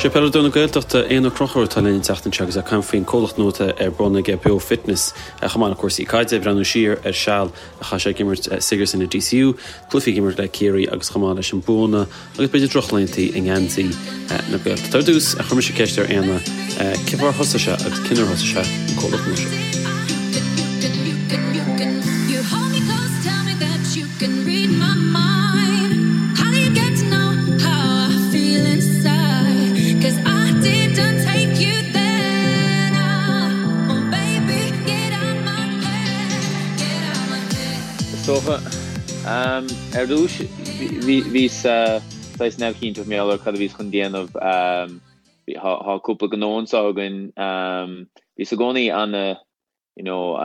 Sé peileadóir na Gaeltachta, Éanna Ó Conchúir atá linn an tseachtain seo agus é ag caint faoin comhlacht nua atá ar bun aige, Beo Fitness, chomh maith le cúrsaí caide, ag breathnú siar ar seal a chaith sé ag imirt Sigerson i DCU, cluichí ag imirt le Ciarraí agus chomh maith leis an buanna agus b'fhéidir drochlaontaí i ngeansaí na Gaeltachta. Ar dtús, chuir mise ceist ar Éanna cén fáth ar thosaigh sé agus cén uair a thosaigh sé an comhlacht nua seo. Is dócha, ar dtús, bhíos saghas neamhchinnte mar gheall ar cad a bhíos chun déanamh. Tá cúpla gnó anseo againn. Bhíos i gcónaí ana you know,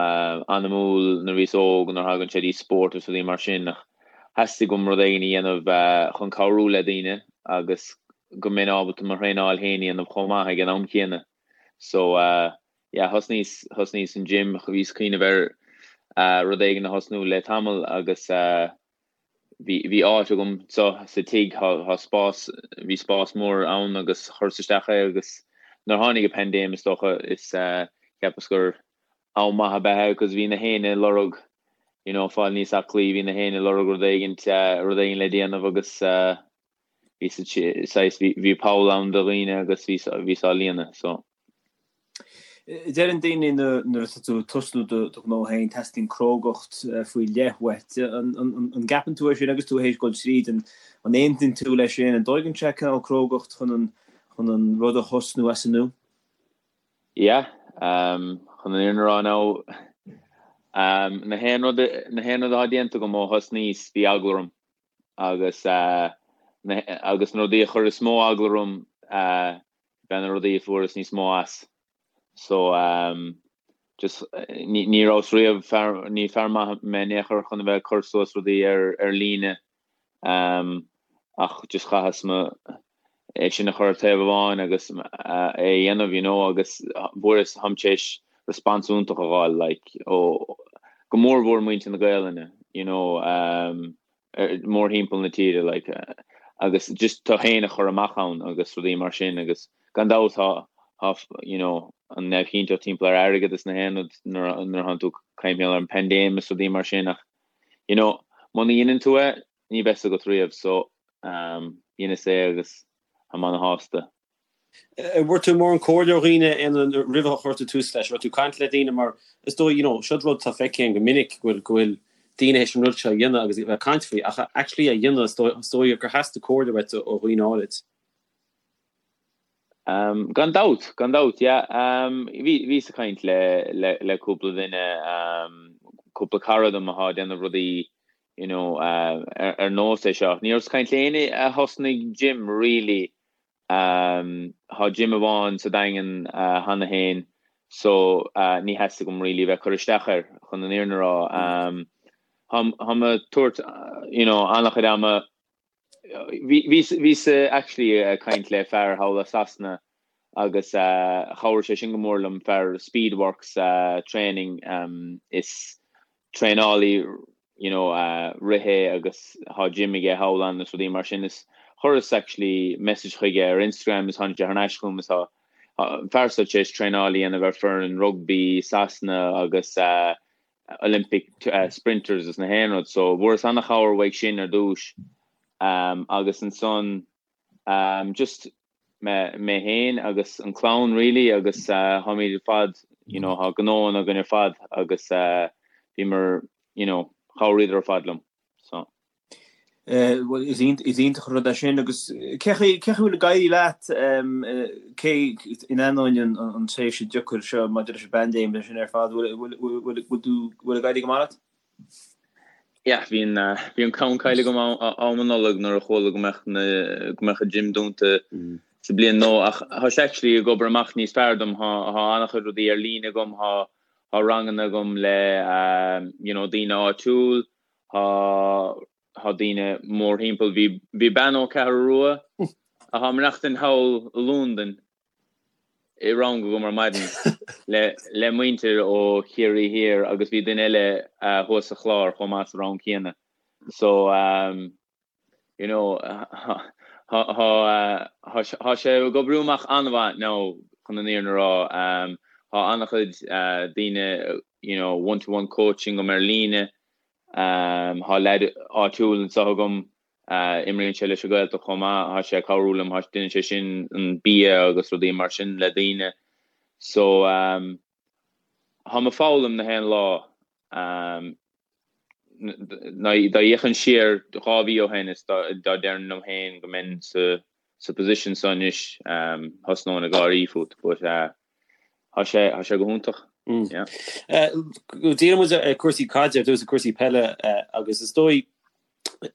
anamúil nuair a bhíos óg nuair a thagann sé dtí spórt agus rudaí mar sin ach theastaigh uaim rud éigin a dhéanamh chun cabhrú le daoine agus go mbeinn ábalta mo thraenáil féin a dhéanamh chomh maith ag an am céanna. So yeah, thosnaíos, thosnaíos an gym, bhíos ag cuimhneamh ar rud éigin a thosnú le tamall agus bhí, bhí áit agam so sa tigh, thá, thá spás, bhí spás mór ann agus chuireas isteach é agus nuair tháinig an paindéim is dócha is cheapas gur am maith ab ea é cos bhí na héinne ag lorg you know fáil níos aclaí, bhí na héinne ag lorg rud éigint, rud éigin le déanamh agus bhí saghas, bhí poll ann do dhaoine agus bhí, bhíos á líonadh so. Deireann daoine nuair atá tú ag tosnú do ghnó féin, teastaíonn crógacht faoi leith uait. An gceapann tú é sin agus tú théis dul tríd? An aontaíonn tú leis sin? An dtóigeann sé cineál crógacht chun an rud a thosnú as an nua? Yeah, chun an fhírinne a rá now, na haon rud, na haon rud atá déanta agam ó thosnaíos, bhí eagla orm agus agus na rudaí a chuir is mó eagla orm, b'ea na rudaí a fuaireas níos mó as. So um just ní ní rabhas riamh fear ní fear maith mé in aon chor chun a bheith ag cur suas rudaí ar ar líne um ach just chaitheas mo é sin a chur ar taobh amháin agus é a dhéanamh you know agus fuaireas táim tar éis response iontach a fháil like ó go mór mhór muintir na Gaelainne you know um mórthimpeall na tíre like agus just tú féin a chur amach ann agus rudaí mar sin agus gan dabht tá tá you know an neamhchinnteacht timpeall ar airgead is na haon rud nuair nuair atánn tú ag caint ar an paindéim is rudaí mar sin ach you know muna dheineann tú é ní bheas agat riamh so um dheineas é agus táim ana-shásta. An bhfuair tú mórán comhairle ó dhaoine roimh a chuir tú tús leis? Raibh tú ag caint le daoine mar is dóigh, you know, seod rud atá feicthe againn go minic go bhfuil, go bhfuil daoine théis an rud seo a dhéanamh agus a bheith ag caint faoi ach actually a dhéanamh is dóigh, is dóigh gur theastaigh comhairle uait ó dhaoine áirid. Um, gan dabht, gan dabht, yeah. Um, bhí, bhíos ag caint le, le, le cúpla duine, um, cúpla cara dom atá ag déanamh rudaí, you know, uh, ar, ar nós é seo. Ní rabhas ag caint le éinne a thosnaigh gym, really, Tá gym amháin sa Daingean cheana féin so ní theastaigh uaim really bheith ag cur isteach air chun an fhírinne a rá. Táim ag tabhairt you know an-chuid ama, bhíos actually ag caint le fear thall i Sasana agus chabhraigh sé sin go mór liom, fear Speedworks training is traenálaí you know rith é agus tá gym aige thall ann is rudaí mar sin is chuireas actually message chuige ar Instagram is tháinig sé thar n-ais chugam is tá an fear seo tar éis traenáil a dhéanamh ar foireann rugbaí Sasana agus Olympic sprinters is na haon rud so bhfuaireas an-chabhair uaidh sin ar dtús agus ansan just mé mé féin agus an clann really agus táimid ar fad you know tá gnóanna againn ar fad agus bhíomar you know chabhraíodar ar fad liom so. Bhuel is iontach an rud é sin agus cé chaoi cé chaoi bhfuil ag éirí leat cé in ainneoin an tréimhse deacair seo maidir leis an bpaindéim leis sin ar fad bhfuil bhfuil bhfuil tú bhfuil ag éirí go maith leat? Yeah, bhí an, bhí an ceann caillte agam am an Nollag nuair a chuala go mbeadh na, go mbeadh an gym dúnta sa bliain nua ach tá sé actually ag obair amach níos fearr dom, tá, tá an-chuid rudaí ar líne agam, tá, tá ranganna agam le you know daoine áitiúil, tá, tá daoine mórthimpeall, bhí, bhí bean ó Ceathrú Rua atá ag maireachtaint thall i Londain i rang agam ar maidin le muintir ó Chiarraí Thiar agus bhí duine eile thuas sa Chlár chomh maith sa rang céanna. So you know. Tá sé ag oibriú amach an-mhaith now chun an fhírinne a rá. Tá an-chuid daoine you know one to one coaching agam ar líne. Tá leaid áitiúil anseo agam, imríonn sé leis an Ghaeltacht chomh maith, tá sé ag cabhrú liom, déanann sé sin an bia agus rudaí mar sin le daoine. So táim ag foghlaim na haon lá. Dá bhféachfainn siar 2 mhí ó shin is dá déarfainn liom féin go mbeinn sa position seo anois, thosnóinn ag gáirí fút but tá sé, tá sé go hiontach. Yeah. Díreoidh muid ar cúrsaí caide ar dtús, cúrsaí peile agus is dóigh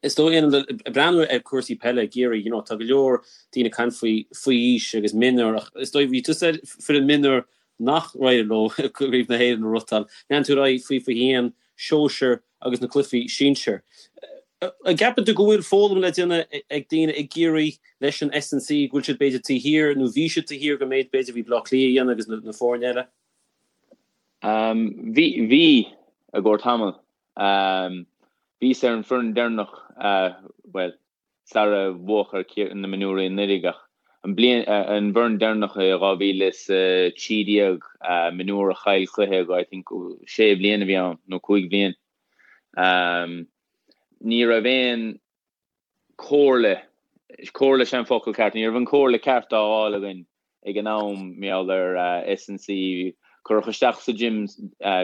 is dóigh ag breathnú ar cúrsaí peile i gCiarraí, you know, tá go leor daoine ag caint faoi faoi aois agus mionúr ach is dóigh bhí tusa ar foireann mionúr nach éirigh leo Craobh na hÉireann a ghnóthachtáil. Lean tú ar aghaidh faoi 21, sóisear agus na cluichí sinsir. An gceapann tú go bhfuil foghlaim le déanamh ag daoine i gCiarraí leis an S&C, go bhfuil siad b'fhéidir taobh thiar nó bhí siad taobh thiar den méid b'fhéidir a bhí Baile Átha Cliath a dhéanamh agus na foirne eile? Bhí, bhí, i gcomhair tamall. Bhíos ar an foireann deireanach, bhuel, sara bhuadh ar na mionúirí anuraidh ach an bliain, an bhfoireann deireanach i 2013, mionúr a chaill cluiche go, I think, sé bhliain a bhí ann, nó cúig bhliain. Ní raibh aon comhairle, comhairle sin an focal ceart, ní raibh an comhairle ceart á fháil againn ag an am, mar gheall ar S&C, cuireadh isteach sa gym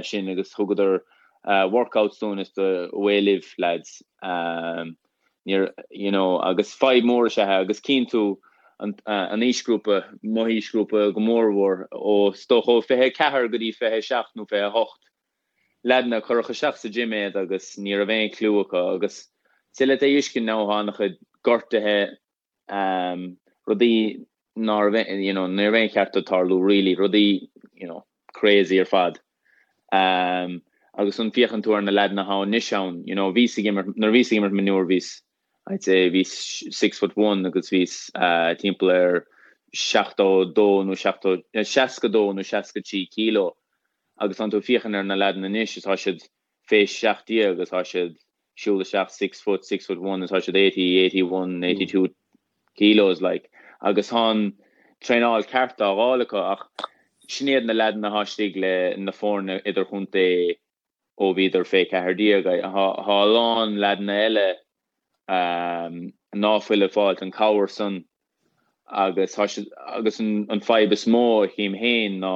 sinn agus thugadar workouts dúinn is away libh lads. Níor, you know, agus fadhb mór is ea é agus cíonn tú an aoisghrúpa, mo aoisghrúpa go mórmhór, ó is dócha ó 24 go dtí 27 nó 28, leaideanna, cuireadh isteach sa gym iad agus ní raibh aon clue acu agus is le é uisce now tá an-chuid gortuithe, rudaí ná raibh, you know, ní raibh aon cheart dóibh tarlú really, rudaí, you know, crazy ar fad. Agus an féachann tú ar na leaideanna atá anois ann, you know, bhíos ag imirt, nuair a bhíos ag imirt mionúr bhíos, I'd say bhíos 6 foot 1 agus bhíos timpeall ar 72 nó 70, 62 nó 63 kilo agus tánn tú ag féachaint ar na leaideanna anois is tá siad fé 17 agus tá siad siúl isteach 6 foot, 6 foot 1 agus tá siad 80, 81, 82 kilos like agus tá an traenáil ceart á fháil acu ach sin iad na leaideanna atá istigh le na foirne idirchontae ó bhíodar fé 14. Tá a lán leaideanna eile ná fuil ag fáilt an cabhair san agus tá siad agus an fadhb is mó a chím féin ná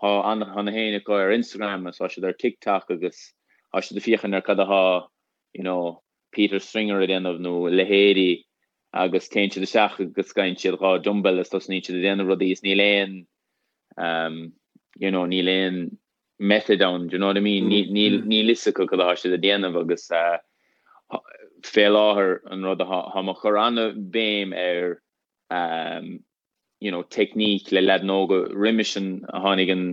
tá an tá na héinne acu ar Instagram agus tá siad ar TikTok agus tá siad ag féachaint ar cad atá you know Peter Stringer ag déanamh nó a leithéidí agus téann siad isteach agus gabhann siad 2 dumbbell is tosnaíonn siad ag déanamh rudaí is níl aon um you know níl aon method ann, do you know what I mean? Níl níl fhios acu cad atá siad ag déanamh agus fé láthair an rud atá tá mé ag cur an-bhéim ar you know technique le leaideanna óga roimis an tháinig an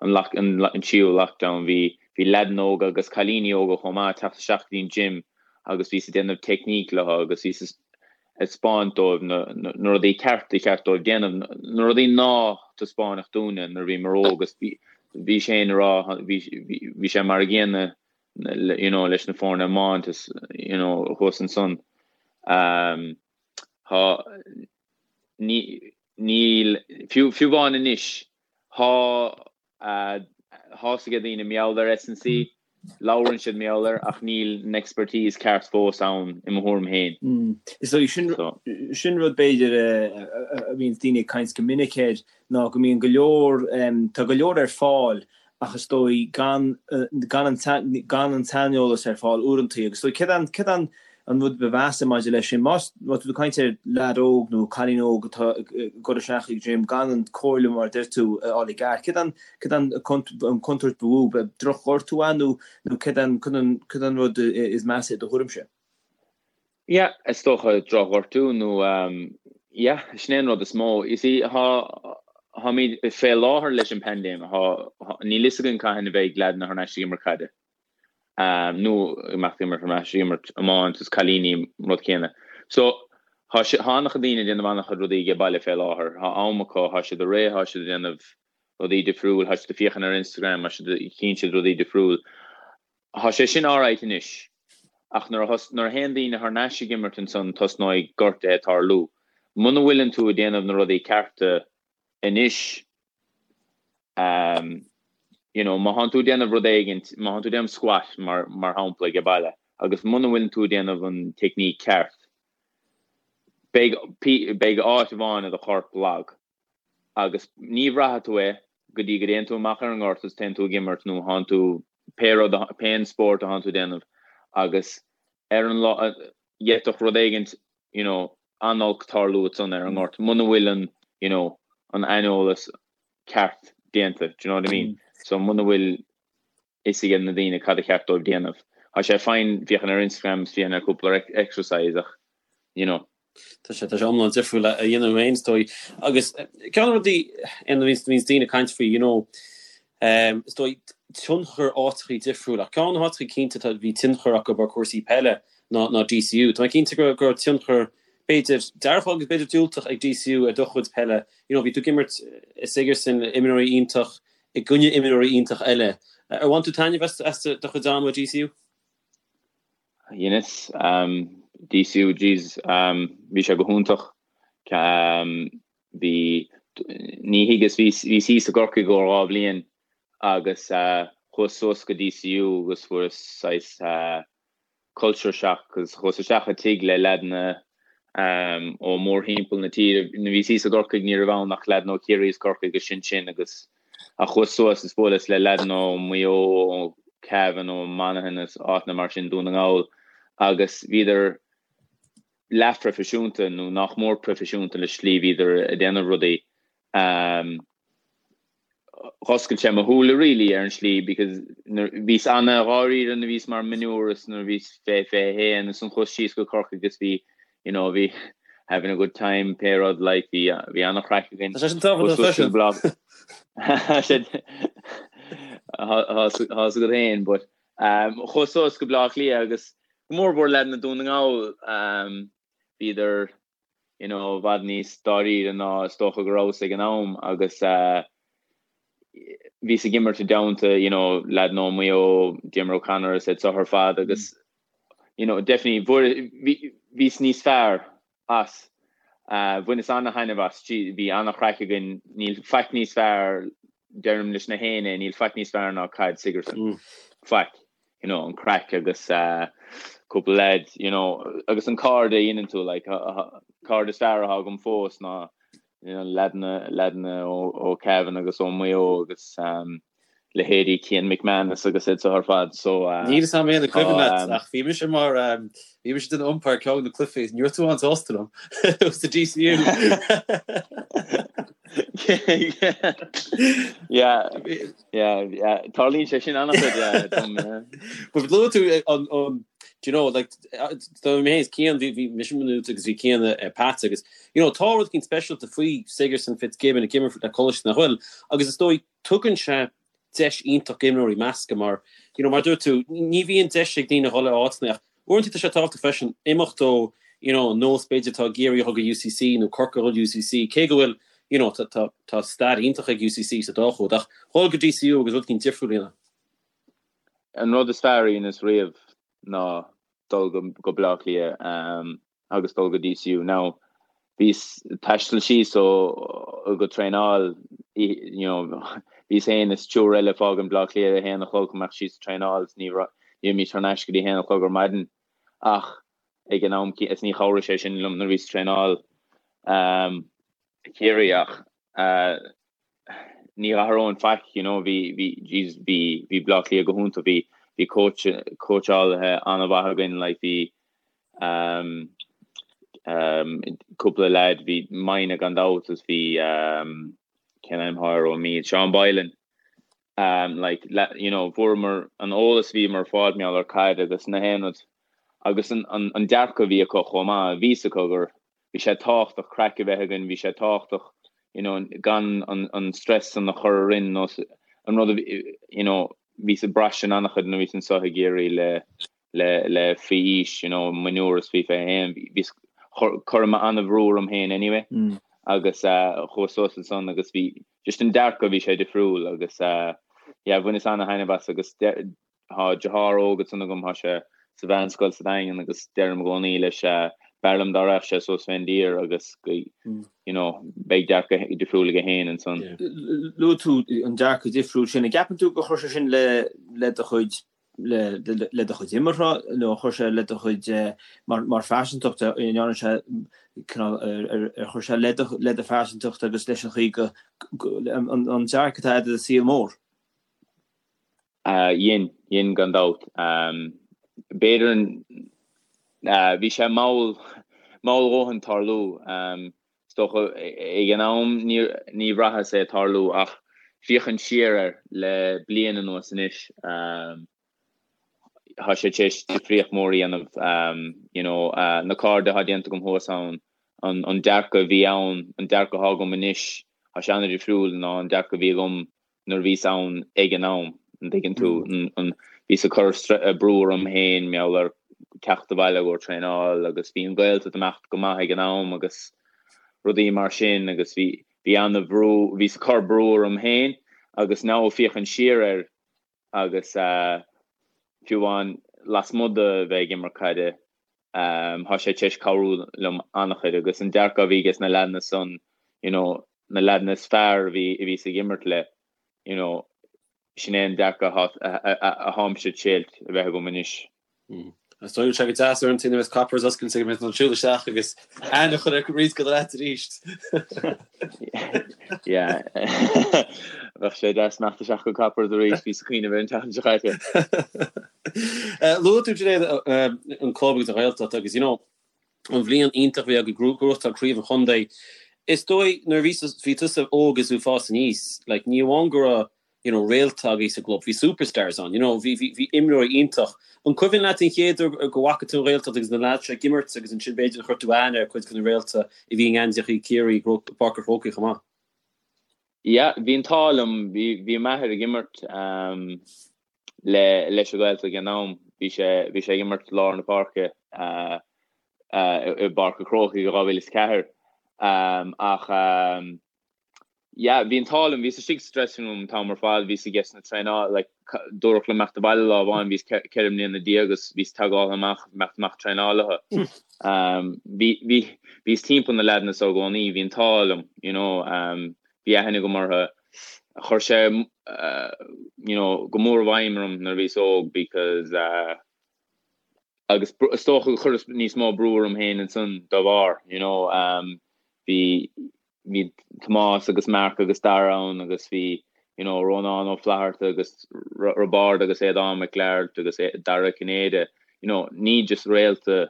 an lock an an tríú lockdown bhí bhí leaideanna óga agus cailíní óga chomh maith ag teacht isteach go dtí an gym agus bhíos ag déanamh technique leo agus bhíos ag 'spáint dóibh na rudaí ceart a cheart dóibh déanamh, na rudaí ná taispeánadh dúinne nuair a bhíomar óg agus bhí sé ina rá, bhí sé mar a gcéanna you know leis na foirne iomáint is you know thuas ansan. Tá, níl, fiú amháin anois, tá Tá fhios ag daoine mar gheall ar S&C, labhrann siad mar gheall air ach níl an expertise ceart fós ann i mo thuairim féin. Is dóigh sin sin rud b'fhéidir a bhíonns daoine ag caint go minic air ná go mbíonn go leor, tá go leor ar fáil ach is dóigh gan gan an gan an tsaineolas ar fáil uaireantaí agus is dóigh céard an céard an an rud ba mheasa maidir leis sin, má tá tú ag caint ar leaid óg nó cailín óg atá ag dul isteach ag gym gan an comhairle mar a deir tú a fháil i gceart, céard an céard an an contúirt ba mhó? Drochghortú ea nó nó céard an céard an céard an rud is measa i do thuairimse? Yeah, is dócha drochghortú nó yeah, sin é an rud is mó. You see, tá táimid fé láthair leis an paindéim, tá níl fhios againn cathain a bheidh leaideanna thar n-ais ag imirt caide. nó ag imeacht ag imirt thar n-ais ag imirt iomáint is cailíní an rud céanna. So tá sé tá an-chuid daoine ag déanamh an-chuid rudaí age baile fé láthair. Tá am acu, tá siad réidh, tá siad ag déanamh rudaí difriúil, tá siad ag féachaint ar Instagram, tá siad chíonn siad rudaí difriúil. Tá sé sin alright anois ach nuair a nuair a théann daoine thar n-ais ag imirt ansan tosnóidh gortuithe ag tarlú. Muna bhfuileann tú ag déanamh na rudaí cearta anois, you know, má thánn tú ag déanamh rud éigint, má thánn tú ag déanamh squat mar, mar shampla ag baile, agus muna bhfuileann tú ag déanamh an technique ceart, beidh, beidh áit amháin i do chorp lag. Agus ní bhraithfidh tú é go dtí go dtéann tú amach ar an ngort is téann tú ag imirt nó thánn tú pé rud, pé an spórt a thánn tú ag déanamh agus ar an lá, d'fhéadfadh rud éigint, you know, an-olc tarlú ansan ar an ngort muna bhfuil an, you know, an aineolas ceart déanta, do you know what I mean? So muna bhfuil fhios ag na daoine cad a cheart dóibh déanamh. Tá sé fine féachaint ar Instagram is féachaint ar cúpla exercise ach, you know. Tá sé, tá sé iomlán difriúil a dhéanamh féin is dóigh. Agus ceann de na rudaí a bhíonns daoine ag caint faoi, you know, is dóigh tionchar áiteachaí difriúil ach ceann de na háiteachaí cinnte atá, bhí tionchar acu ar cúrsaí peile ná, ná DCU. Tá mé cinnte go, go raibh tionchar b'fhéidir dearfach agus b'fhéidir diúltach ag DCU ar do chuid peile. You know, bhí tú ag imirt i Sigerson, imreoirí iontach i gcoinne imreoirí iontach eile. Ar bhain tú taitneamh as, as do chuid ama i DCU? Dheineas. DCU, jeez, bhí sé go hiontach. Bhí, ní thuigeas, bhíos thíos i gCorcaigh i gcomhair 2 bhliain agus chuas suas go DCU agus fuaireas saghas culture shock agus chuas isteach i tigh le leaideanna ó mórthimpeall na tíre. Nuair a bhíos thíos i gCorcaigh ní raibh ann ach leaideanna ó Chiarraí is Corcaigh agus sin sin agus ach chuas suas is bhuaileas le leaideanna ó Mhaigh Eo, ó Cavan, ó Monaghan is áiteanna mar sin, Dún na nGall agus bhíodar leathphroifisiúnta nó nach mór proifisiúnta le slí bhíodar ag déanamh rudaí. Dh'oscail sé mo shúile really ar an slí because bhíos ana-dháiríre nuair a bhíos mar mionúr is nuair a bhíos fé 21 is ansan chuas síos go Corcaigh agus bhí you know bhí having a good time pé rud like bhí bhí ana-chraic againn. Tá sé sin tábhachtach freisin. Tá 's agat féin but chuas suas go Bleá Cliath agus go mór mhór leaideanna Dún na nGall bhíodar you know i bhfad níos dáiríre ná is dócha go rabhas ag an am agus bhíos ag imirt i dteannta you know leaideanna ó Mhaigh Eo, Diarmuid O'Connor is iad seo ar fad agus you know definitely bhíos níos fearr as. Bhaineas ana-thaitneamh as, bhí ana-chraic againn, níl faic níos fearr, deirim leis na héinne, níl faic níos fearr ná caid Sigerson. Faic. You know, an craic agus cúpla leaid, you know, agus an cairde a dhéanann tú, like, cairde is fearr atá agam fós ná, you know, leaideanna, leaideanna ó Cavan agus ó Maigh Eo agus leithéidí Cian McManus agus iad seo ar fad so Níl fhios a'm an cuimhin leat ach bhí mise mar bhí mise den umpire ceann de na cluichí ní raibh tú an-sásta liom sa DCU. Yeah, yeah, yeah. Tarlaíonn sé sin an-chuid yeah, dom, yeah. But luaigh tú an an do you know like do mé is Cian bhí bhí mise minút agus bhí Cian ar Pats agus you know tá rud éicint speisialta faoi Sigerson Fitzgibbon ag imirt le coláiste nach bhfuil agus is dóigh tugann sé deis iontach d'imreoirí meascadh mar, you know, mar a dúirt tú, ní bhíonn deis ag daoine a dhul ar áiteanna ach uaireanta tá sé tábhachtach freisin imeacht ó, you know, an nós b'fhéidir atá i gCiarraí a dhul go UCC nó Corcaigh a dhul UCC, cé go bhfuil, you know, tá, tá, tá stair iontach ag UCC sa dá chód ach dhul go DCU agus rud éicint difriúil a dhéanamh. An rud is fearr a dheineas riamh ná dul go, go Bleá Cliath. Agus dul go DCU. Now, bhíos ag taisteal síos ó go traenáil, you know, bhíos féin is triúr eile ag fágaint Bleá Cliath ag a haon a chlog chun imeacht síos ag traenáil is ní raibh, ní bhímis thar n-ais go dtí a haon a chlog ar maidin. Ach ag an am, is ní chabhraigh sé sin liom nuair a bhíos ag traenáil Ciarraí ach ní athróinn faic, you know, bhí, bhí, jeez, bhí, bhí Bleá Cliath go hiontach, bhí, bhí coach, cóitseálaithe an-mhaith againn, like, bhí um, um, cúpla leaid, bhí Mine gan dabht is bhí um, cén ainm atá air ó Meath, Seán Boylan, um, like, le, you know, fuaireamar an eolas bhíomar ag fáil mar gheall ar caid agus na haon rud agus an, an, an dearcadh a bhí acu chomh maith, bhí fhios acu gur bhí sé tábhachtach craic a bheith againn, bhí sé tábhachtach you know, gan an, an stress san a chur orainn nó an rud a bhí, you know, bhíos ag brath sin an-chuid nuair a bhíos anseo i gCiarraí le, le, le faoi aois, you know, mionúr is faoi 21, bhíos, chuir mé an-bhrú orm féin anyway mm. agus uh, chuas suas ansan agus bhí just an dearcadh bhí sé difriúil agus uh, yeah, bhaineas ana-thaitneamh as agus Tá deartháir óg ansan agam, tá sé sa mheánscoil sa Daingean agus deirim i gcónaí leis. B'fhearr liom dá raghadh sé suas fén dtír agus go, you know, beidh dearcadh difriúil aige féin ansan. Luaigh tú an dearcadh difriúil sin. An gceapann tú gur chuir sé sin le le do chuid le le do chuid imeartha nó chuir sé le do chuid mar mar phearsantacht an ndearna sé cineál ar ar chuir sé le do le do phearsantacht agus leis an chaoi go an an dearcadh atá agat ar an saol mór? Dhein, dhein gan dabht. B'fhéidir, bhí sé mall, mall a dhóthain tarlú. Is dócha, ag an am ní, ní bhraitheas é tarlú ach féachaint siar air le bliain anuas anois, tá sé tar éis difríocht mór a dhéanamh. You know, na cairde atá déanta agam thuas ann, an, an dearcadh a bhí ann, an dearcadh atá agam anois, tá sé an-difriúil ná an dearcadh a bhí agam nuair a bhíos ann ag an am, an dtuigeann tú, an, bhíos ag cur brú orm féin, mar gheall ar teacht abhaile ó traenáil agus bhí an Ghaeltacht ag imeacht go maith ag an am agus rudaí mar sin agus bhí, bhí ana-bhrú, bhíos ag cur brú orm féin agus now féachaint siar air agus fiú amháin lasmuigh de bheith ag imirt caide, tá sé tar éis cabhrú liom an-chuid agus an dearcadh a bhí ages na leaideanna san, you know, na leaideanna is fearr a bhí a bhíos ag imirt le, you know, sin é an dearcadh a tháimse ag triail a bheith agam anois. Is dóigh sé go deas ar an tine is Coppers oscailte go mbeidh an siúl isteach agus aithne a chur ar roinnt de na leaids arís. Yeah. Bheadh sé deas imeacht isteach go Coppers arís, bhíos ag cuimhneamh air an tseachtain seo caite. Luaigh tú Sinéad an club agus an Ghaeltacht agus you know an bhliain iontach a bhí agaibh ag gnóthachtáil craobh an chontae. Is dóigh nuair a bhí bhí tusa óg is tú ag fás aníos like ní amháin go raibh you know réalta agaibh sa gclub, bhí superstars ann, you know bhí bhí bhí imreoirí iontach. An cuimhin leat an chéad uair go bhfaca tú an Ghaeltacht agus na lads seo ag imirt agus ansin b'fhéidir chuir tú aithne ar cuid de na réalta a bhí i ngeansaíochaí Ciarraí i bPáirc an Chrócaigh chomh maith? Yeah, bhí an t-ádh liom, bhí bhí m'athair ag imirt um, le leis an Ghaeltacht ag an am, bhí sé bhí sé ag imirt lár na páirce uh, uh, i bPáirc an Chrócaigh i 2004 um, ach um, Yeah, bhí an t-ádh liom, bhíos istigh sa dressing room an t-am ar fad, bhíos ages na traenáil, like, dúradh liom imeacht abhaile lá amháin, bhíos 14 mbliana agus bhíos teagáil amach, imeacht amach traenáil leo. Um, bhí, bhí, bhíos timpeall na leaideanna so i gcónaí, bhí an t-ádh liom, you know, um, bhí aithne agam orthu. Chuir sé, uh, you know, go mór i bhfeidhm orm nuair a bhíos óg because, uh, agus is dócha gur chuireas níos mó brú orm féin ansan dá bharr, you know, um, bhí, bhí Tomás agus Mark agus Dara ann agus bhí you know Rónán Ó Flatharta agus Roibeárd agus Aodán Mac Gearailt agus Dara Ó Cinnéide, you know ní just réalta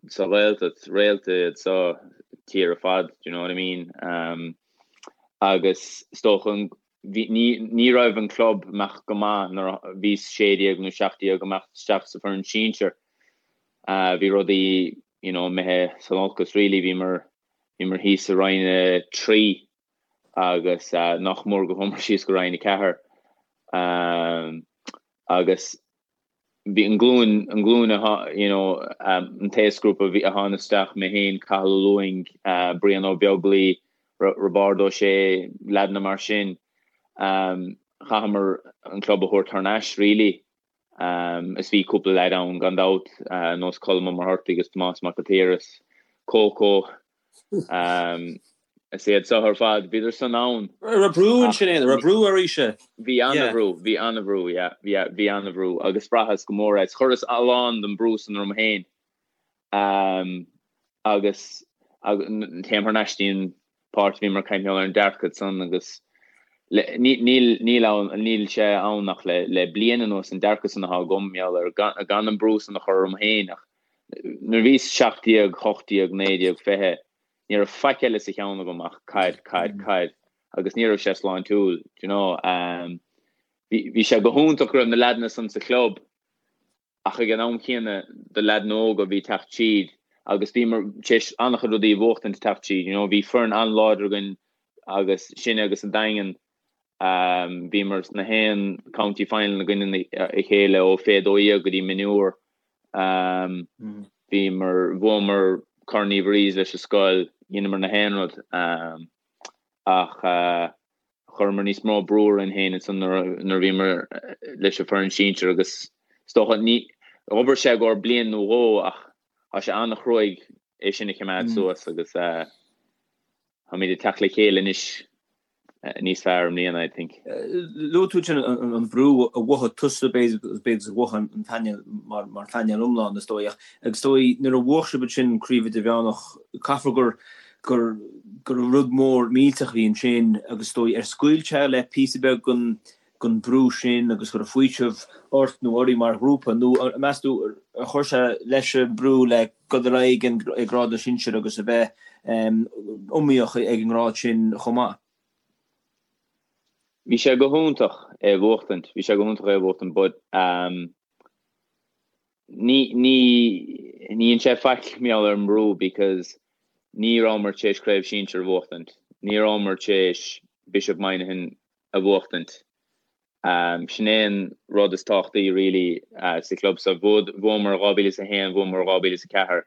sa Ghaeltacht, réalta iad sa tír ar fad, do you know what I mean? Um, agus is dócha bhí, ní, ní raibh an club ag imeacht go maith nuair a bhíos 16 nó 17 ag imeacht isteach sa foireann sinsir. Uh, bhí rudaí, you know, imithe san olcas really, bhíomar Bhíomar thíos i Roinn 3 agus nach mór go chuamar síos go Roinn 4. Agus bhí an glúin, an glúin a, you know, an t-aosghrúpa a tháinig isteach, mé féin, Cathal Ó Lúing, Brian Ó Beaglaoi, Roibeárd Ó Sé, leaideanna mar sin, chaitheamar an club a thabhairt thar n-ais really. Is bhí cúpla leaid ann gan dabht, nós Colm Ó Muircheartaigh agus Tomás Mac an tSaoir is Coco. Is iad seo ar fad, bhíodar san ann. Raibh brú ansin, an raibh brú oraibhse? Bhí an-bhrú, bhí an-bhrú, yeah, yeah, bhí an-bhrú agus bhraitheas go mór é. Chuireas a lán den brú san orm féin. Agus téim thar n-ais dtí an páirt a bhíomar ag caint ar an dearcadh san agus níl níl ann níl sé ann ach le le bliain anuas an dearcadh san atá agam mar gheall ar gan gan an brú san a chur orm féin ach nuair a bhíos 17, 18, 19, 20 ní raibh faic eile sa cheann agam ach caid, caid, caid agus ní raibh sé sláintiúil, do you know. Bhí bhí sé go hiontach go raibh na leaideanna san sa chlub ach ag an am chéanna do leaideanna óga a bhí ag teacht tríd agus bhíomar tar éis an-chuid rudaí a bhuachtaint ag teacht tríd, you know, bhí foireann an-láidir againn agus sinne agus an Daingean, bhíomar sna haon county final i gcoinne a chéile ó fé 12 go dtí mionúr, bhíomar, bhuamar Corn Uí Mhuirí leis an scoil, dheineamar na haon rud ach. Chuireamar níos mó brú orainn féin ansan nuair a bhíomar leis an foireann sinsir agus is dócha, ní, dh'obair sé i gcomhair bliain nó dhó ach tá sé an-chruaidh. é sin a choimeád suas agus táimid ag teacht le chéile anois níos fearr i mbliana, I think. Luaigh tú ansin an brú a mhothaigh tusa, b'fhéidir, agus a mhothaigh an painéal mar phainéal iomlán, is dóigh, ach is dóigh nuair a bhuaigh sibh ansin Craobh Idirmheánach, caithfear gur gur gur rud mór millteach a bhí ansin agus is dóigh ar scaoil sé le píosa beag den den brú sin agus go raibh faoiseamh ort nó oraibh mar ghrúpa nó meas tú ar chuir sé leis an brú le dul ar aghaidh ag grád na sinsear agus a bheith iomaíoch ag an ngrád sin chomh maith? Bhí sé go hiontach é a bhuachtaint, bhí sé go hiontach é a bhuachtaint but ní ní ní dhein sé faic mar gheall ar an mbrú because ní rabhamar tar éis craobh sinsir a bhuachtaint, ní rabhamar tar éis Bishop Moynihan a bhuachtaint. Sin é an rud is tábhachtaí really sa chlub so. Bhuamar 2001, bhuamar 2004.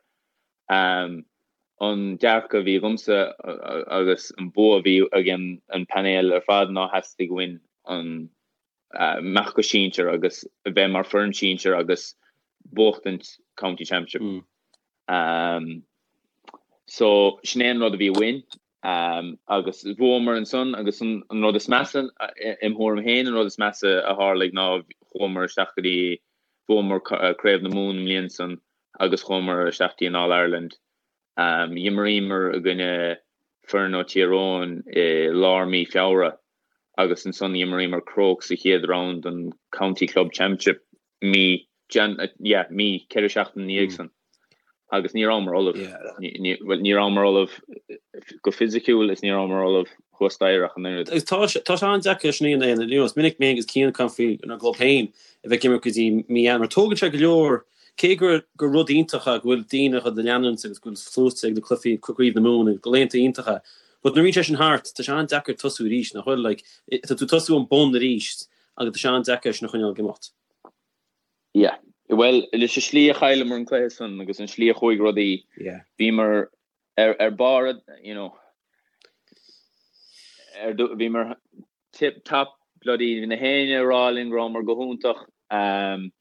An dearcadh a bhí agamsa agus an bua a bhí ag an painéal ar fad ná theastaigh uainn an imeacht go sinsir agus a bheith mar foireann sinsir agus buachtaint County Championship. So sin é an rud a bhí uainn. Agus bhuamar ansan agus an rud is measa, im thuairim féin, an rud is measa a tharlaigh ná chuamar isteach go dtí, bhuamar Craobh na Mumhan an mbliain san agus chuamar isteach dtí an All Ireland. D'imríomar i gcoinne foireann ó Tír Eoghain i lár mí Feabhra agus ansan d'imríomar Crokes sa chéad round den County Club Championship mí, yeah, mí, 4 seachtain ina dhiaidh san agus ní rabhamar ullamh. Bhuel, ní rabhamar ullamh go fisiciúil is ní rabhamar ullamh thuas staighre ach an oiread. Agus tá sé, tá sé an-deacair sin a dhéanamh, you know, is minic mé agus Cian ag caint faoinár gclub féin a bheith ag imirt go dtí mí Eanáir, mar tógann sé go leor, cé gur, gur rud iontach é go bhfuil daoine á leanúint agus go bhfuil sluaite ag na cluichí Craobh na Mumhan agus go laethanta iontacha, but nuair a bhíonn sé sin thart, tá sé an-deacair tosú arís, nach bhfuil, like, tá tú ag tosú ón bun arís agus tá sé an-deacair é sin a choinneáil ag imeacht. Yeah. Bhuel, leis an slí a chailleamar an cluiche san agus an slí a chuaigh rudaí, Yeah. bhíomar ar, ar barr, you know, ar, bhíomar tip top, bloody, bhí na héinne ag rá linn go rabhamar go hiontach, um,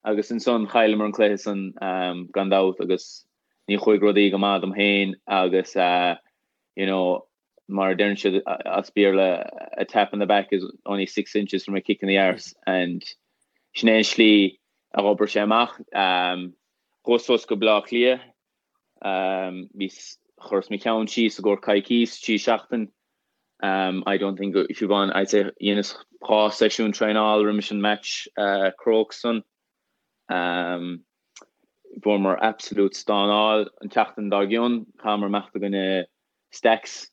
agus ansan chailleamar an cluiche san, um, gan dabht agus ní chuaigh rudaí go maith dom féin agus, uh, you know, mar a deireann siad as Béarla, a tap in the back is only 6 inches from a kick in the arse and sin é an slí a dh'obair sé amach. Chuas suas go Baile Átha Cliath, bhíos, chuireas mo cheann síos i gcomhair coicís, 3 seachtain, I don't think, Siobhán, I'd say dheineas 2 seisiún traenáil roimis an match Crokes san. Fuaireamar absolute stánáil an tseachtain dár gcionn, chaitheamar imeacht i gcoinne Stacks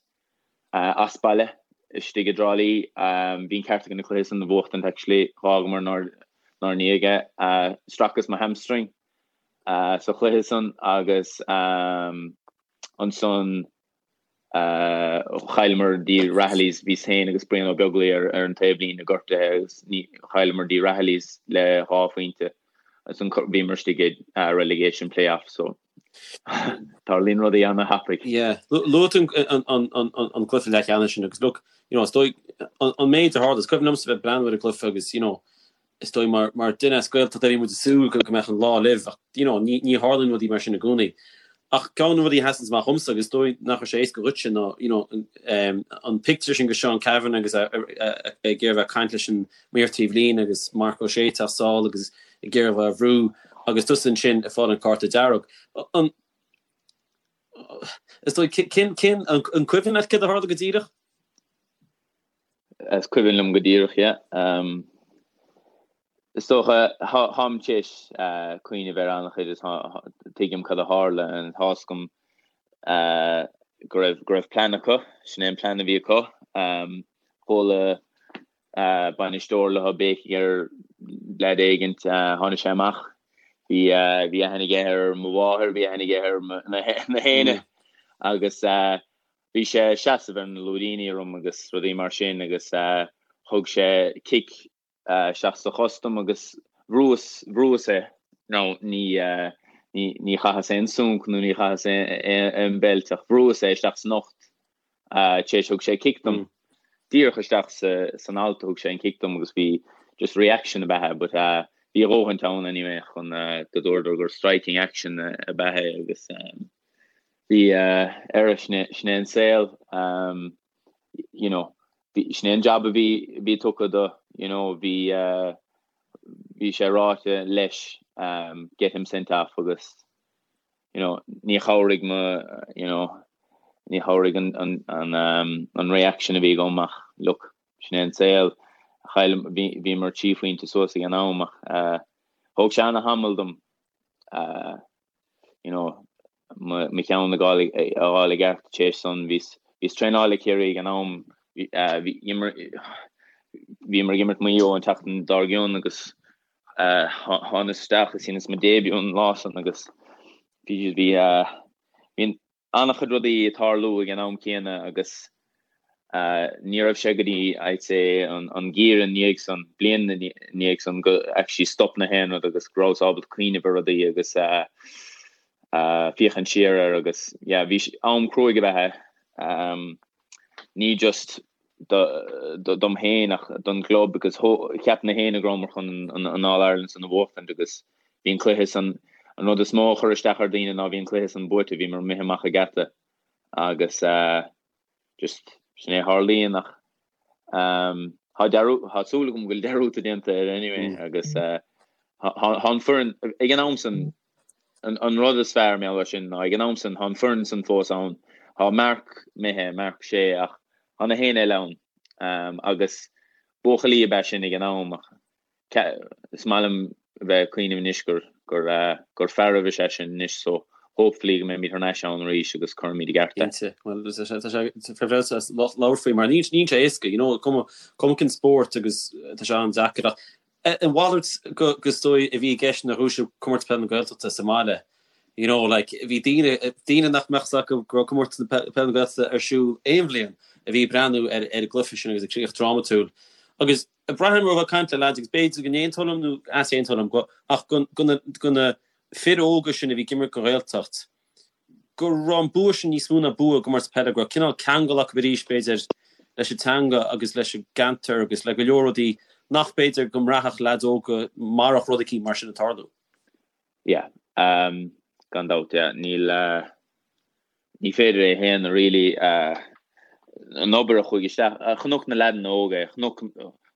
as baile istigh i dTrá Lí. Bhí an ceart againn an cluiche san a bhuachtaint actually. Dh'fhágamar inár ndiaidh é. Stracas mo hamstring sa chluiche san agus ansan chailleamar dtí Rahillys. Bhíos féin agus Brian Ó Beaglaoi ar an taobhlíne gortaithe agus chailleamar dtí Rahillys le 2 phointe. Ansan bhíomar istigh i relegation play-off so. Tarlaíonn rudaí ana-thapaidh. Yeah. Luaigh tú an cluiche leathcheannais sin agus look, you know, is dóigh an méid a tharla, is cuimhin liomsa bheith ag breathnú ar an gcluiche agus, you know, is dóigh mar mar duine as Gaeltacht a bhí muid ag súil go mbeadh an lá libh ach, you know, ní ní tharlaíonn rudaí mar sin i gcónaí. Ach ceann de na rudaí a sheasann amach dhomsa agus is dóigh nach raibh sé éasca dhuitse ná, you know, an pictiúr sin de Seán Cavanagh agus é ag iarraidh bheith ag caint leis an maor taobhlíne agus Marc Ó Sé ag teacht sall agus ag iarraidh a bheith á bhrú agus tusa ansin ag fáil an cárta dearg. An is dóigh cén cén an cuimhin leat céard a tharla go díreach? Is cuimhin liom go díreach, yeah. Um, is dócha táim tar éis uh, cuimhneamh ar an-chuid is tuigim cad a tharla and tá 'fhios agam uh, go raibh go raibh plean acu, sin é an plean a bhí acu. Um, chuala bainisteoir leo béicigh ar leaid éigint, tháinig sé amach, bhí bhí aithne aige ar mo mháthair, bhí aithne aige ar na héinne agus bhí sé ag seasamh ar na lúidíní orm agus rudaí mar sin agus thug sé cic isteach sa chos dom agus bhrúas bhrúas é. Now ní ní ní chaitheas aon sunc nó ní chaitheas aon beilt ach bhrúas é isteach san ucht Tar éis thug sé cic dom. Díreach isteach san alt a thug sé an cic dom agus bhí just reaction ab ea é but bhí a dhóthaint ann anyway chun go dúradar gur striking action ab ea é agus. Bhí ar sin é an saol you know sin é an jab a bhí bhí tugtha do you know bhí bhí sé ráite leis get him sent off agus you know ní chabhraigh mo you know ní chabhraigh an an an an reaction a bhí agam ach look sin é an saol chaill bhíomar trí phointe suas ag an am ach thóg sé ana-thamall dom you know, mo cheann a fháil i gceart tar éis san. Bhíos ag traenáil le Ciarraí ag an am, bhíomar ag imirt Maigh Eo an tseachtain dár gcionn agus thánas isteach is dheineas mo début an lá san agus bhí bhí an-chuid rudaí ag tarlú ag an am céanna agus ní raibh sé go dtí, I'd say, an geimhreadh ina dhiaidh san, bliain ina dhiaidh san go actually stop na haon rud agus go rabhas ábalta cuimhneamh ar rudaí agus féachaint siar air agus yeah, bhí am cruaidh ab ea é. Ní just dom féin ach don gclub because cheap na héinne go rabhamar chun an All Ireland san a bhuachtaint agus bhí an cluiche san, an rud is mó a chuir isteach ar daoine ná bhí an cluiche san buaite, bhíomar imithe amach an geata agus just sin é a tharlaíonn ach tá dearú, tá súil agam go bhfuil dearúd déanta air anyway agus tá an foireann ag an am san an rud is fearr mar gheall air sin ná ag an am san tá an foireann san fós ann, tá Marc imithe, Marc Shea ach tá na héinne eile ann agus buachaillí ab ea sinn ag an am ach Is maith liom a bheith ag cuimhneamh anois gur gur gur fearaibh is ea sinn anois so hopefully go mbeimid thar n-ais ann arís agus cuirfimid i gceart é. Cinnte. Bhuel tá sé tá sé fearfas as labhairt faoi mar níl níl sé éasca you know cuma cuma cén spórt agus tá sé an-deacair ach an mhalairt go go is dóigh a bhí i gceist nuair a bhuaigh sibh Comórtas Peile na Gaeltachta sa mbaile you know like bhí daoine daoine nach mbeadh 's acu go raibh Comórtas na Peile na Gaeltachta ar siúl aon bhliain a bhí ag breathnú ar ar an gcluiche sin agus an críoch drámatúil agus Braithim ó bheith ag caint le leaids agus b'fhéidir go n-aontóinn liom nó easaontóinn liom go ach go na go na fir óga sin a bhí ag imirt don Ghaeltacht go raibh an bua sin níos mó ná bua i gcomórtas peile go raibh cineál ceangal acu arís b'fhéidir leis an teanga agus leis an gceantar agus le go leor rudaí nach b'fhéidir go mbraithfeadh leaids óga marach rud eicínt mar sin ag tarlú. Yeah, gan dabht, yeah. Níl, ní féidir é a shéanadh really, an obair a chuaigh isteach, chonaic na leaideanna óga é, chonaic,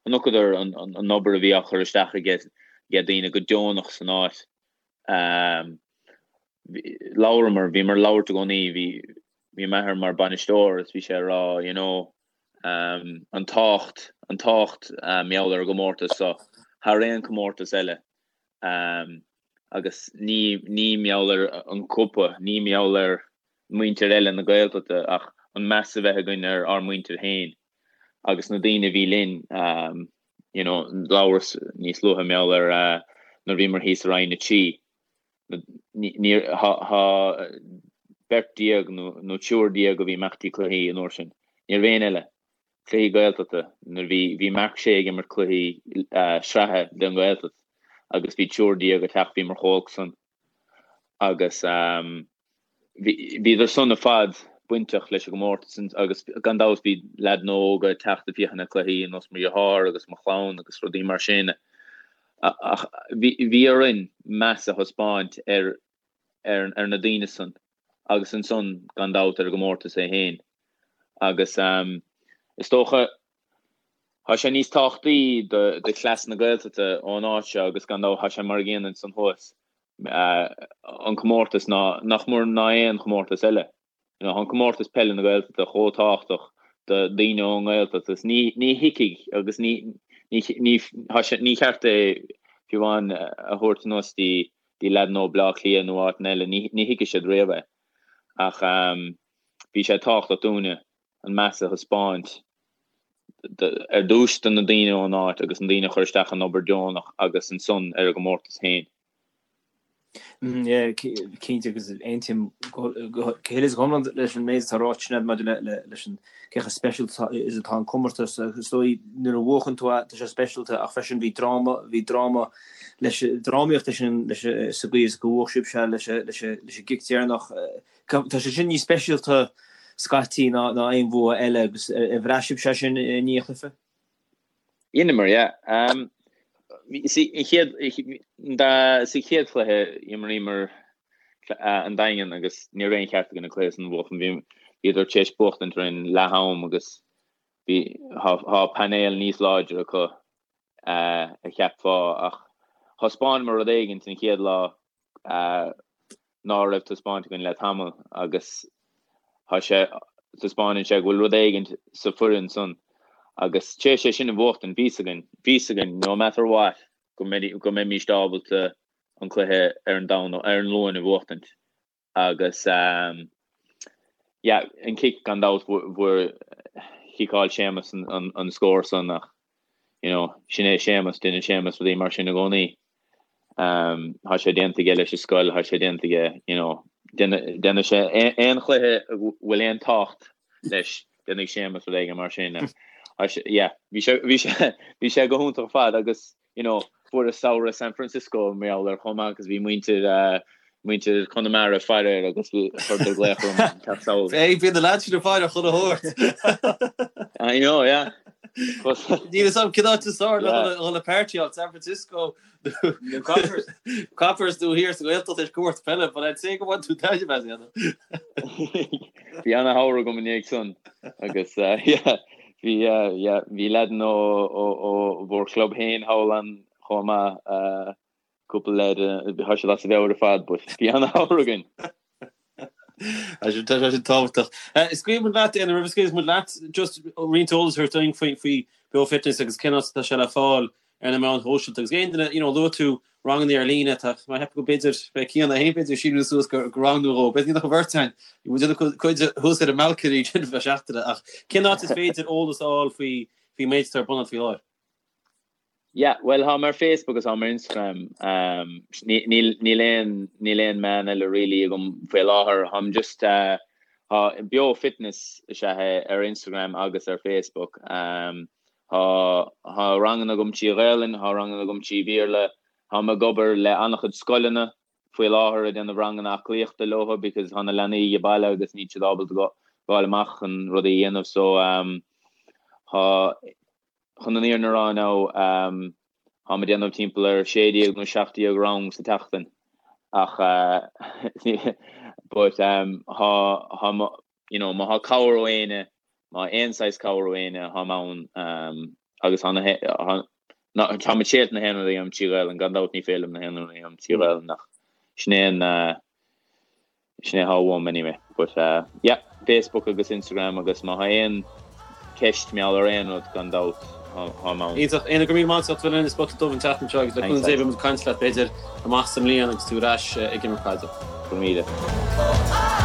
chonaiceadar an obair a bhí á chur isteach aige daoine go deonach san áit. Labhramar, bhíomar ag labhairt i gcónaí, bhí, bhí m'athair mar bainisteoir is bhí sé ag rá, you know, an tábhacht, an tábhacht mar gheall ar an gcomórtas seo thar aon comórtas eile. Agus ní ní mar gheall ar an gcupa, ní mar gheall ar muintir eile na Gaeltachta ach an meas a bheith againn ar ár muintir féin agus na daoine a bhí linn. You know, labhras níos luaithe mar gheall ar nuair a bhíomar thíos i Roinn 3. Níor, tá beirt déag nó triúr déag a bhí ag imeacht dtí cluichí an uair sin. Ní raibh éinne eile. Cluichí Gaeltachta, nuair bhí, bhí Marc Shea ag imirt cluichí sraithe don Ghaeltacht agus bhí triúr déag ag teacht, bhíomar chomh holc san agus bhí, bhíodar san ar fad bainteach leis an gcomórtas agus gan dabht bhí leaideanna óga ag teacht ag féachaint ar cluichí ar nós mo dheartháir agus mo chlann agus rudaí mar sin ach bhí, bhí orainn meas a thaispeáint ar, ar, ar na daoine san agus ansan gan dabht ar an gcomórtas é féin. Agus is dócha, tá sé níos tábhachtaí do chleas na Gaeltachta ón áit seo agus gan dabht tá sé mar a gcéanna ansan thuas, an comórtas ná nach mór ná aon chomórtas eile. You know, tá an comórtas peile na Gaeltachta chomh tábhachtach do daoine ón nGaeltacht agus ní ní thuigfidh agus ní ní ní tá sé ní cheart é fiú amháin a thabhairt anuas dtí dtí leaideanna ó Bleá Cliath nó áiteanna eile, ní ní thuigfidh siad riamh é. Ach bhí sé tábhachtach dúinne an meas a thaispeáint ar dtús do na daoine ón áit agus na daoine a chuir isteach an obair deonach agus ansan ar an gcomórtas féin. Cinnte agus aontaím go huile is go hiomlán leis an méid atá ráite sin maidir leis an cé chomh speisialta is atá an comórtas agus is dóigh nuair a bhuachann tú é tá sé speisialta ach freisin bhí dráma, bhí dráma leis, drámaíocht leis an, leis, sa gcaoi is go bhuaigh sibhse leis, leis, leis an gcic deireanach. Tá sé sin níos speisialta scaití ná ná aon bhua eile agus ar bhraith sibhse sin i ndiaidh an chluiche? Dheineamar, yeah. Sa chéad, sa chéad chluiche, imríomar. An Daingean agus ní raibh aon cheart againn an cluiche san a bhuachan. Bhí bhíodar tar éis buachtaint roimh leath am agus bhí thá painéal níos láidre acu a cheapfá ach thaispeánamar rud éigin an chéad lá ná raibh taispeáint againn le tamall agus thá sé taispeánann sé go bhfuil rud éigin sa foireann san agus tar éis é sin a bhuachtaint bhí 's againn bhí 's againn no matter what go go mbeimíst ábalta an cluiche ar an Domhnach ar an Luan a bhuachtaint agus yeah an cic gan dabht bhfuair chiceáil Séamus an an scór san ach you know sin é Séamus déanann Séamus rudaí mar sin i gcónaí. Um, thá sé déanta aige leis an scoil, thá sé déanta aige you know déanfaidh sé aon chluiche a bhfuil aon tábhacht leis déanfaidh Séamus rud éigin mar sin. Yeah, bhí sé bhí sé bhí sé go hiontach ar fad agus you know, fuaireas samhradh San Francisco mar gheall air chomh maith agus bhí muintir eh, muintir Chonamara ag faire air agus bhí chuireadar glaoch orm teacht sall. Hey, bíonn na lads sin ag faire chuile shórt. I know, yeah. Níl a fhios agam cén áit is fearr le dhul ag páirtíáil, San Francisco nó Coppers. Coppers nó thiar sa Ghaeltacht leis comórtas peile, but I'd say go bhfaigheann tú taitneamh as, you know. Bhí ana-shamhradh agam i ndiaidh san agus eh, yeah, Bhí, yeah, bhí leaideanna ó bhur chlub féin thall ann chomh maith, cúpla leaid, tá siad as a mheabhair ar fad, but bhí ana-shamhradh againn. Tá sé sin tábhachtach. Scaoilfidh muid leat, Éanna, roimh a scaoilfidh muid leat, just roinnt eolas a thabhairt dúinn faoi faoi Beo Fitness agus cén áit atá sé le fáil ar na meáin shóisialta agus aon duine, you know, luaigh tú ranganna ar líne, tá mé ag ceapadh go b'fhéidir, beidh Cian é féin b'fhéidir ag síniú suas go rang nó dhó, b'fhéidir nach an bheirt againn, bhí muid ina cuid thuas ar an mbalcony sin feadh seachtaine ach cén áit is féidir eolas a fháil faoi faoin méid atá ar bun agat faoi láthair? Yeah, well táim ar Facebook agus táim ar Instagram, um, níl níl aon níl aon meán eile really agam faoi láthair, táim just uh, tá Beo Fitness is ea é ar Instagram agus ar Facebook. Um, Tá tá ranganna agam trí Ghaelainn, tá ranganna agam trí Bhéarla. Táim ag obair le an-chuid scoileanna faoi láthair ag déanamh ranganna aclaíochta leo because tá na leanaí ag baile agus níl siad ábalta gabháil amach chun rudaí a dhéanamh so um tá chun an fhírinne a rá now um táim ag déanamh timpeall ar 16 nó 17 rang sa tseachtain ach uh but um tá tá you know, má thá cabhair ó éinne, má aon saghas cabhair ó éinne, táim ann agus tá na, tá, táim ag triail na haon rud a dhéanamh trí Ghaelainn, gan dabht ní féidir liom na haon rud a dhéanamh trí Ghaelainn ach sin é an, sin é atá uaim anyway. But yeah, Facebook agus Instagram agus má thá aon ceist mar gheall ar aon rud, gan dabht, táim ann. Iontach. Éanna, go raibh míle maith agat as ucht a bheith linn ar Spota Dubh an tseachtain seo agus le cúnamh Dé beidh muid ag caint leat b'fhéidir amach sa mbliain agus tú ar ais ag imirt caide. Go raibh míle.